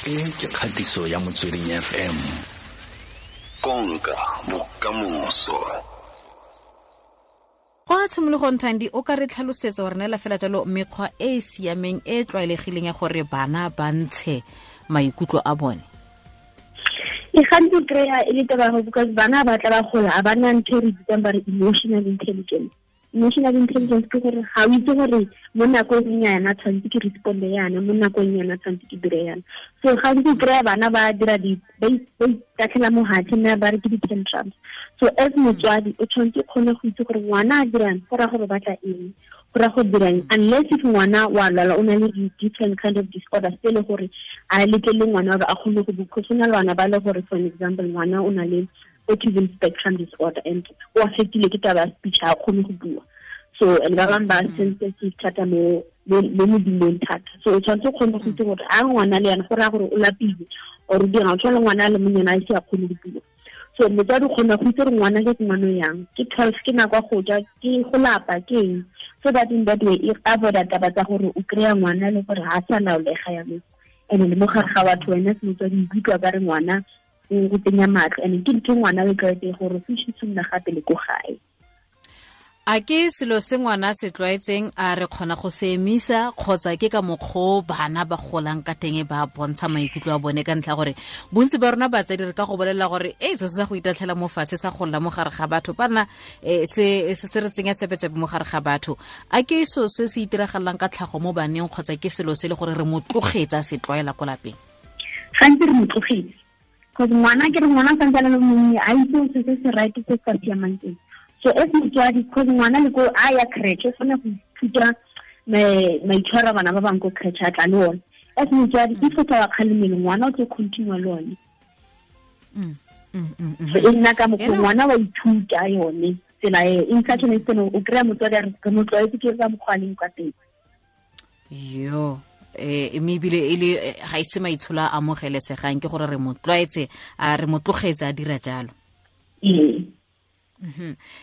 E ke kgatiso ya Motsweding FM. Konka bokamoso. Kwa tshimologong, Thandi, o ka re tlhalosetsa gore neela fela jalo mekgwa e e siameng e e tlwaelegileng ya gore bana ba ntshe maikutlo a bone? E gantsi kry-a e le taba because bana ba tla ba gola a ba na ntho e re bitsang ba re emotional intelligence. Emotional intelligence ke gore ga o itse gore mo nakong yana tshwanetse ke responde yana, mo nakong yana tshwanetse ke dire yana. So gantsi o kry-a bana ba dira ba itatlhela mo hatshe mme ba re ke di-tantrums. So as motswadi o tshwanetse o kgone go itse gore ngwana a dirang go raya gore batla eng, go raya go dirang, unless if ngwana wa lwala o na le di-different kind of disorders tse e le gore a letlele ngwana gore a kgone go bua. Go na le bana ba le gore, for an example, ngwana o na le autism spectrum disorder and o affectile ke taba ya speech, ha kgone go bua. So and ba bangwe ba sensitive thata mo modumong thata. So o tshwanetse o kgone go itse gore a ngwana le yana go raya gore o lapile or o dirang, o tshwana le ngwana a le monyana a ise a kgone go bua. So motswadi o kgona go itse gore ngwana ke ngwana yang, ke 12, ke nako ya go ja, ke go lapa, ke eng, so that in that way e avoida taba tsa gore o kry-a ngwana le gore ga a sa laolega yanong. And le mo gare ga batho wena se motswadi o ikutlwa ka re ngwana o go tsenya matlho, and ke ntho ngwana o e tlwaetse gore o fitlhe gape le ko gae. A ke selo se ngwana se tlwaetseng a re kgona go se emisa, kgotsa ke ka mokgwa bana ba golang ka teng ba bontsha maikutlo a bone? Ka ntlha gore bontsi ba rona batsadi re ka go bolelela gore e so se sa go itatlhela mo fatshe sa golla mo gare ga batho bana, se se re tsenya tsepetsebe mo gare ga batho. A ke so se se itiragalang ka tlhago mo baneng, kgotsa ke selo se le gore re mo tlogetsa se tlwaela ko lapeng? Gantsi re mo tlogetse because ngwana ke re ngwana santse a le monnye, a itse se se se right se sa siamang teng. So as motswadi, because ngwana le ko a ya creche o kgona go ithuta maitshwaro a bana ba bangwe ko creche a tla le one. As motswadi, if o tla wa kgalemelo, ngwana o tlo continue le one. So e nna ka mokgwa ngwana wa ithuta yone tsela e in such an extent o kry-a motswadi a re re mo tlwaetse ke ka mokgwa a leng ka teng. Yo, mme ebile e le ga ise maitsholo a amogelesegang, ke gore re mo tlwaetse, a re mo tlogetse a dira jalo.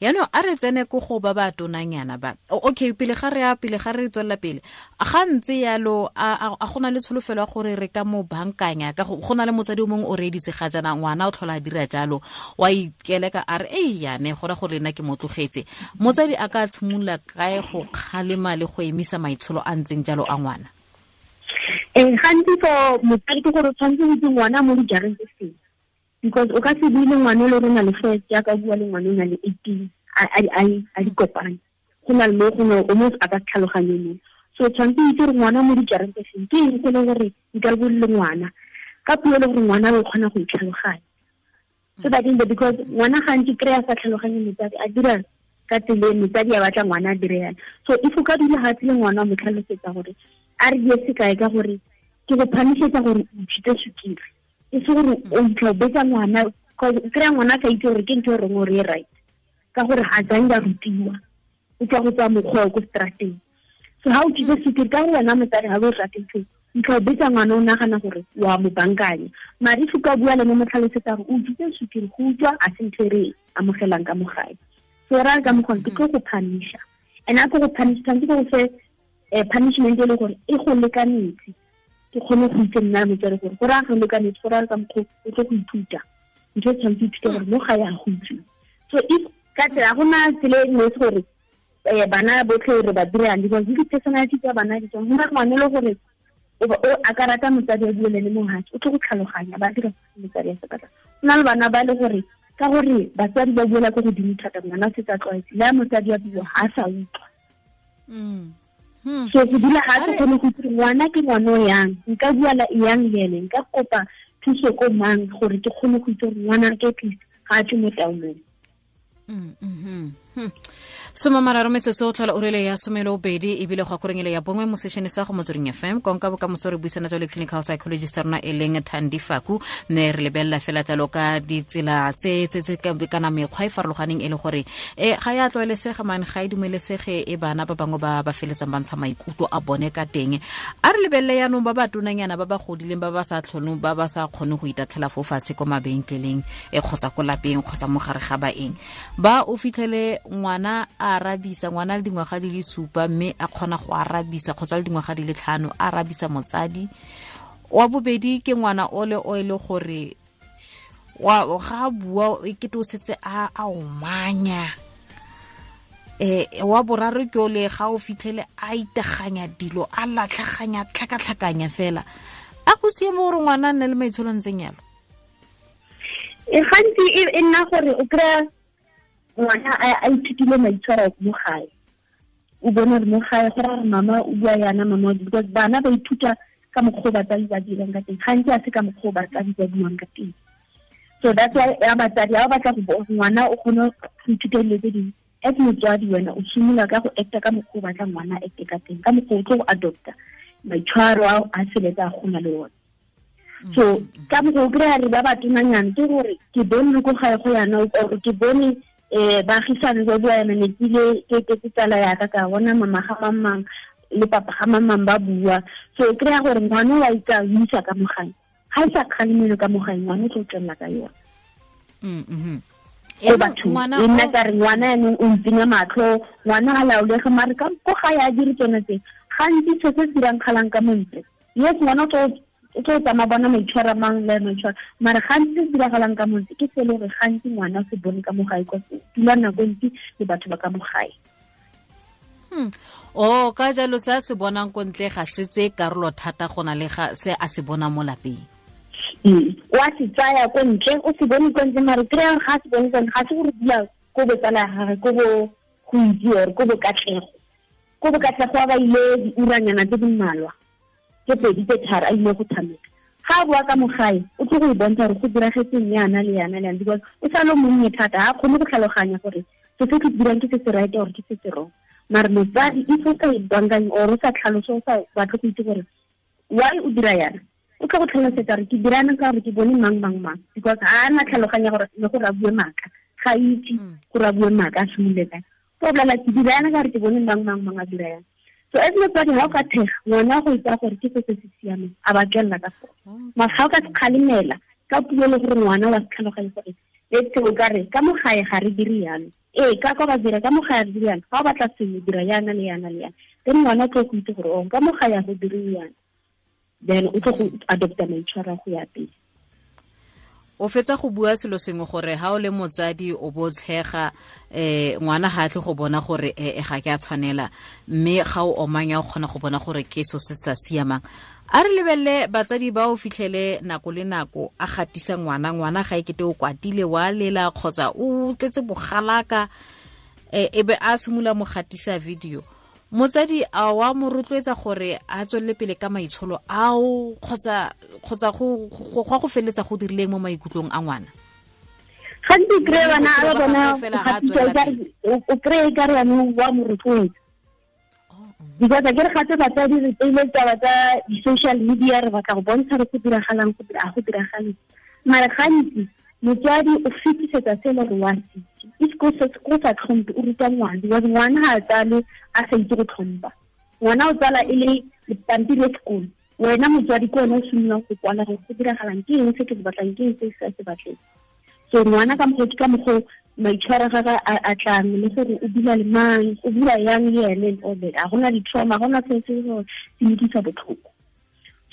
Yaanong a re tsene ko go ba ba tonanyana ba. Okay, pele ga re ya, pele ga re tswelela pele, ga ntse yalo, a gona le tsholofelo ya gore re ka mo bankanya? Ka go na le motsadi o mongwe o reeditse ga jaana, ngwana o tlhola a dira jalo, wa ikeleka a re, ei yane, go raya gore nna ke mo tlogetse. Motsadi a ka tshimolola kae go kgalema le go emisa maitsholo a ntseng jalo a ngwana? Gantsi for motsadi ke gore o tshwanetse go itse ngwana mo dijareng tse feng, because o ka se bue le ngwana o le gore o na le first, jaaka o bua le ngwana o na le 18, a di kopane. Go na le mo gongwe o mo a ka tlhaloganye mo. So o tshwanetse o itse gore ngwana mo dijareng tse feng, ke eng se e leng gore nka bue le ngwana ka puo e le gore ngwana o kgona go itlhaloganya. So that in the, because ngwana gantsi kry-a sa tlhaloganye motsadi a dira ka tsela e motsadi a batla ngwana a dire yana. So if o ka dula gatshe le ngwana o mo tlhalosetsa gore a re die sekai ka gore ke go phamisetsa gore o ithute sukiri, e se gore o itlha o betsa ngwana, kry-a ngwana a sa itse gore ke ntho e reng gore e right, ka gore ga tsang ba rutiwa, o tswa go tswa mokgwa o ko strateng. So ha o ithute sukiri ka gore wena motsadi ga o e rate ntho, ntlha o betsa ngwana o nagana gore wa mo bankanya. Mare if o ka bua le mo tlhalosetsa gore o ithute sukiri, go utswa a se ntho e re amogelang ka mo gae. So ra ka mokgwa ke tlo go punisha, and a ke go punish tshwanetse ke go fe punishment e le gore e go lekanetse, ke kgone go itse nna motswadi gore go raya go lekanetse, go raya ka mokgwa o tlo go ithuta ntho e tshwanetse ithute gore mo gae a go utswiwa. So if ka tsela go na tsela e nngwe gore bana botlhe re ba dirang, because di-personality tsa bana di tswa, go na ngwana e le gore o a ka rata motsadi a bue le le mogatse, o tlo go tlhaloganya ba dira motsadi a se batla. Go na le bana ba le gore ka gore batsadi ba buela ko godimo thata, ngwana o setse a tlwaetse, le ha motsadi a bua ga a sa utlwa. So go dula ga se kgone go itse ngwana ke ngwana o yang, nka bua la yang le ene, nka kopa thuso ko mang gore ke kgone go itse gore ngwana ke at least ga a tswe mo taolong. Soma mararo metsotso o tlhola orele ya somelo bedi ebile go akorengele ya bongwe mo sešene sa go Motsweding FM. Konka bokamoso re buisana jalo le clinical psychologist rona e leng Thandi Faku, mme re lebelela fela jalo ka ditsela tse tse tse kana mekgwa e farologaneng e le gore ga ya tlwaelesega mane, ga e dumelesege e bana ba bangwe ba ba feletsang ba ntsha maikutlo a bone ka teng. A re lebelele yaanong ba ba tonanyana ba ba godileng ba ba sa tlhonong, ba ba sa kgoneng go itatlhela fo fatshe ko mabenkeleng kgotsa ko lapeng kgotsa mo gare ga baeng. Ba o fitlhele ngwana a arabisa, ngwana le dingwaga di le 7 mme a kgona go arabisa, kgotsa le dingwaga di le 5 a arabisa motsadi. Wa bobedi ke ngwana o le o ile gore wa ga bua e kete o setse a omanya. Wa boraro ke o le ga o fitlhele a iteganya dilo a latlhaganya tlhakatlhakanya fela. A go siame gore ngwana a nne le maitsholo a ntseng yalo? E gantsi e nna gore o kry-a ngwana a ithutile maitshwaro mo gae. O bone gore mo gae go ra gore mama o bua yana, mama, because bana ba ithuta ka mokgwa o batsadi ba dirang ka teng. Gantsi a se ka mokgwa o batsadi ba buang ka teng. So that's why ya batsadi ha o batla go ngwana o kgone go ithuta dilo tse dingwe. As motswadi wena o simolola ka go acta ka mokgwa o batlang ngwana a acte ka teng, ka mokgwa o tlo go adopta maitshwaro ao a feletsa a gola le one. So ka mokgwa o kry-a re ba batonanyana ke gore ke bone le ko gae go yana, or ke bone baagisane ba bua yana, ne ke ile ke tsala yaka ka bona mama ga mang le papa ga mang ba bua. So o kry-a gore ngwana wa itsa o isa ka mo gae, ga e sa kgalemelo ka mo gae, ngwana o tlo tswelela ka yone. E batho e nna ka re ngwana yanong o ntsenya matlho, ngwana ga laolege, mare ka ko gae a dire tsone tse. Gantsi se se dirang kgalang ka montle, yes, ngwana o tlo tsamaya bona maitshwaro a mang le maitshwaro, mare gantsi se se diragalang ka montle ke se e le gore gantsi ngwana o se bone ka mo gae, kwa se dula nako e ntsi le batho ba ka mo gae. O ka jalo se a se bonang ko ntle ga se tseye karolo thata go na le ga se a se bonang mo lapeng. O a se tsaya ko ntle, o se bone ko ntle, mare kry-ang ga a se bone ko ntle, ga se gore dula ko botsala ya gagwe, ko bo go itse or ko bokatlego. Ko bokatlego a ba ile diuranyana tse di mmalwa, tse pedi tse tharo a ile go tshameka. Ga a boa ka mo gae, o tlo go e bontsha gore go diragetseng yana le yana le yana, because o sa le monnye thata, ga a kgone go tlhaloganya gore se se ke dirang ke se se right or ke se se wrong. Mare motsadi if o sa e bankanye or o sa tlhalose, o sa batle go itse gore why o dira yana, o tlo go tlhalosetsa gore ke dira yana ka gore ke bone mang mang mang, because ga a na tlhaloganya gore le gore a bue maaka, ga itse gore a bue maaka a simolole kae. O bolela ke dira yana ka gore ke bone mang mang mang a dira yana. So as motsadi ga o ka thega ngwana go itsa gore ke se se se siameng, a ba tswelela ka sone. Mara ga o ka se kgalemela ka puo le gore ngwana wa se tlhaloganye gore let's say o ka re ka mo gae ga re dire yalo, ee ka kwa ba dira ka mo gae re dire yana, ga o batla sengwe dira yana le yana le yana, then ngwana o tlo go itse gore o ka mo gae ga go dire yana, then o tlo go adopta maitshwaro a go ya pele. O fetsa go bua selo sengwe gore ha o le motsadi o bo tshega, ngwana ga a tle go bona gore ga ke a tshwanela, mme ga o omanya o kgona go bona gore ke so se sa siamang. A re lebelele batsadi ba o fitlhele nako le nako a gatisa ngwana, ngwana ga e kete o kwatile wa lela kgotsa o tletse bogalaka, e be a simolola mo gatisa video. Motsadi a wa mo rotloetsa gore a tswelele pele ka maitsholo ao kgotsa go go feletsa go dirileng mo maikutlong a ngwana? Gantsi kry-e bana ba bona o kry-e ka re yanong wa mo rotloetsa, because a ke re gape batsadi re tseile taba tsa di-social media, re batla go bontsha re go diragalang a go diragale, mare gantsi motswadi o fetisetsa se le gore wa se itse. If go sa tlhompe o ruta ngwana, because ngwana ga a tsale a sa itse go tlhompa. Ngwana o tsala e le pampiri ya sekolo, wena motswadi ke wena o simololang go kwala gore go diragalang, ke eng se ke se batlang, ke eng se ke sa se batleng. So ngwana ka mokgwa ke ka mokgwa maitshwaro a gagwe a tlang le gore o dula le mang, o bua yang le ene and all that. A gona di-trauma, ga gona se se se mo utlwisa botlhoko.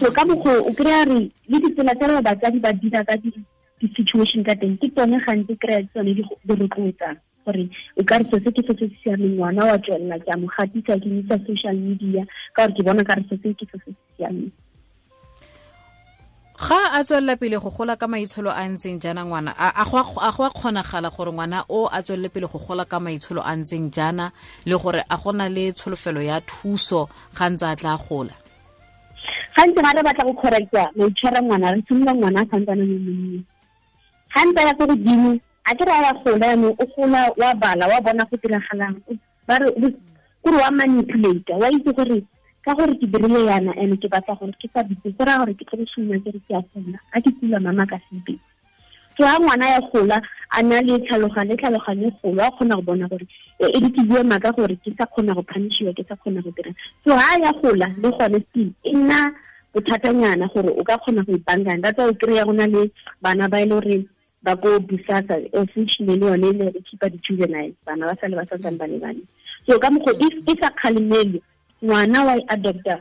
So ka mokgwa o kry-a re le ditsela tse batsadi ba dira ka di-situation ka teng ke tsone gantsi kry-a tsone di rotloetsang gore o ka re se ke se se siameng, ngwana wa tswelela ke a mo gatisa ke isa social media ka gore ke bona ka re se ke se se siameng. Ga a tswelela pele go gola ka maitsholo a ntseng jaana ngwana, a go a kgonagala gore ngwana o a tswelele pele go gola ka maitsholo a ntseng jaana, le gore a gona le tsholofelo ya thuso ga ntse a tla gola? Gantsi ga re batla go correcta maitshwaro a ngwana, re simolola ngwana a santsane le monnye. Ga ntse a ya ko godimo, a ke re a ya gola yanong, o gola wa bala, wa bona go diragalang, ba re kore wa manipulate, wa itse gore ka gore ke dirile yana and ke batla gore ke sa bitse, go raya gore ke tlo go simolola ke re ke a kula, a ke kula mama ka se bitse. So ha ngwana ya gola a na le tlhaloganyo, tlhaloganyo e golo, a kgona go bona gore e re ke bue maaka gore ke sa kgona go punishiwa, ke sa kgona go dira. So ha ya gola le gone still e nna bothatanyana gore o ka kgona go ipankanya. That's why o kry-a go na le bana ba e le gore ba ko Bosasa, unfortunately le yone e le keep-a di-juveniles, bana ba sale ba santsane ba le bane. So ka mokgwa if e sa kgalemele ngwana wa e adopta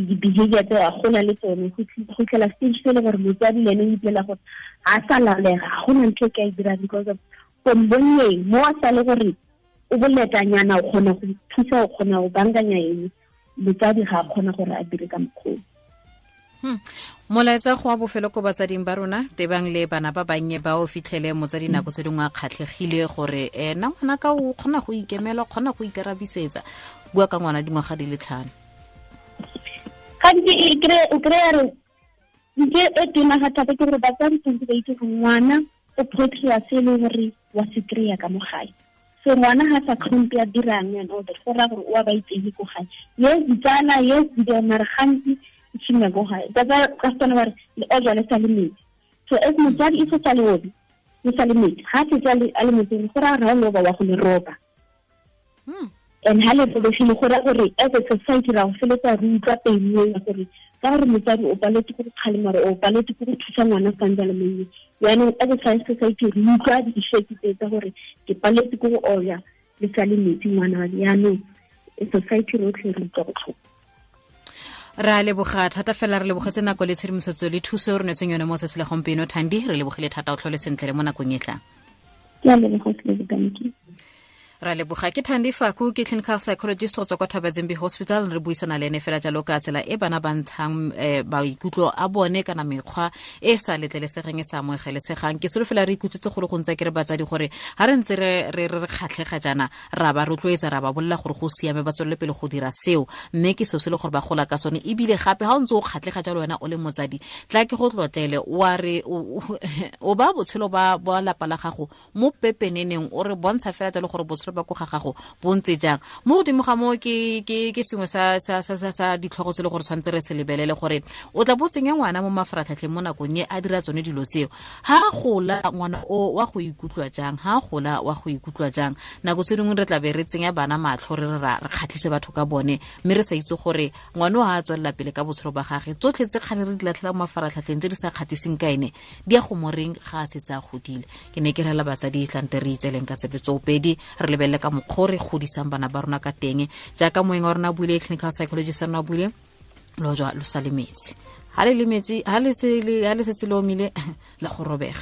di-behavior tse a gola le tsone go fitlhela stage se le gore motsadi le ene o ipolela gore ga a sa laolega, ga gona ntho e ka e dirang because of from bonneng mo a sa le gore o boletanyana, o kgona go thusa, o kgona go bankanya eng, motsadi ga a kgona gore a dire ka mokgwa. Molaetsa go wa bofelo ko batsading ba rona tebang le bana ba bannye ba o fitlhele motsadi nako tse dingwe a kgatlhegile gore ena ngwana ka o kgona go ikemela, o kgona go ikarabisetsa, bua ka ngwana dingwaga di le 5. Gantsi o kry-a re ntho e tona ga thata ke gore batsadi tshwanetse ba itse gore ngwana o portray-a se e leng gore wa se kry-a ka mo gae. So ngwana ga sa tlhompe a dirang and all that, go raya gore o a ba itsege ko gae. Yes, ditsala, yes, di mare gantsi e tshimolola ko gae. Ka Setswana ba re le ojwa le sa le metsi. So as motsadi e se sa le obe, le sa le metsi, ga a setse a le metsing, go raya gore ga o loba wa go le roba. And ha le robegile, go raya gore as a society ra go feletsa re utlwa pain eo ya gore ka gore motsadi o paletse ke go kgalema, o paletse ke go thusa ngwana santse a le monnye. Jaanong as a society re utlwa di-effect tse tsa gore ke paletse ke go oya le sa le metsi ngwana wa me. Jaanong society rotlhe re utlwa botlhoko. Re a leboga thata fela, re lebogetse nako le tshedimosetso le thuso e re neetseng yone mo tsatsi la gompieno. Thandi, re lebogile thata, o tlhole sentle le mo nakong e tlang. Ke a leboga, thank you. Ra leboga. Ke Thandi Faku, ke clinical psychologist go tswa kwa Thabazimbi Hospital. Re buisana le ene fela jalo ka tsela e bana ba ntshang maikutlo a bone kana mekgwa e sa letlelesegeng, e sa amogelesegang. Ke solofela re ikutlwetse go le gontsi ke re batsadi gore ga re ntse re kgatlhega jaana, ra ba rotloetsa, ra ba bolela gore go siame, ba tswelele pele go dira seo, mme ke seo se le gore ba gola ka sone. Ebile gape ga o ntse o kgatlhega jalo wena o le motsadi, tla ke go tlotlele, wa re o ba botshelo ba lapa la gago mo pepeneneng, o re bontsha fela jalo gore botshelo ba ko ga gago bo ntse jang. Mo godimo ga moo ke sengwe sa ditlhogo tse le gore tshwanetse re se lebelele gore o tla bo tsenya ngwana mo mafaratlhatlheng mo nakong e a dira tsone dilo tseo. Ha gola ngwana o wa go ikutlwa jang, ha gola wa go ikutlwa jang. Nako tse dingwe re tla be re tsenya bana matlho, re re kgatlhise batho ka bone, mme re sa itse gore ngwana o ha a tswelela pele ka botshelo ba gagwe, tsotlhe tse kgale re di latlhela mo mafaratlhatlheng tse di sa kgatiseng ka ene di ya go moreng ga a setse a godile. Ke ne ke rela batsadi tlante re itseleng ka tsebe tsoopedi, re lebelele ka mokgwa re godisang bana ba rona ka teng. Jaaka moeng wa rona a buile, clinical psychologist rona a buile, lo jwa lo sa le metsi, ha le le metsi, ha le setse le omile la go robega.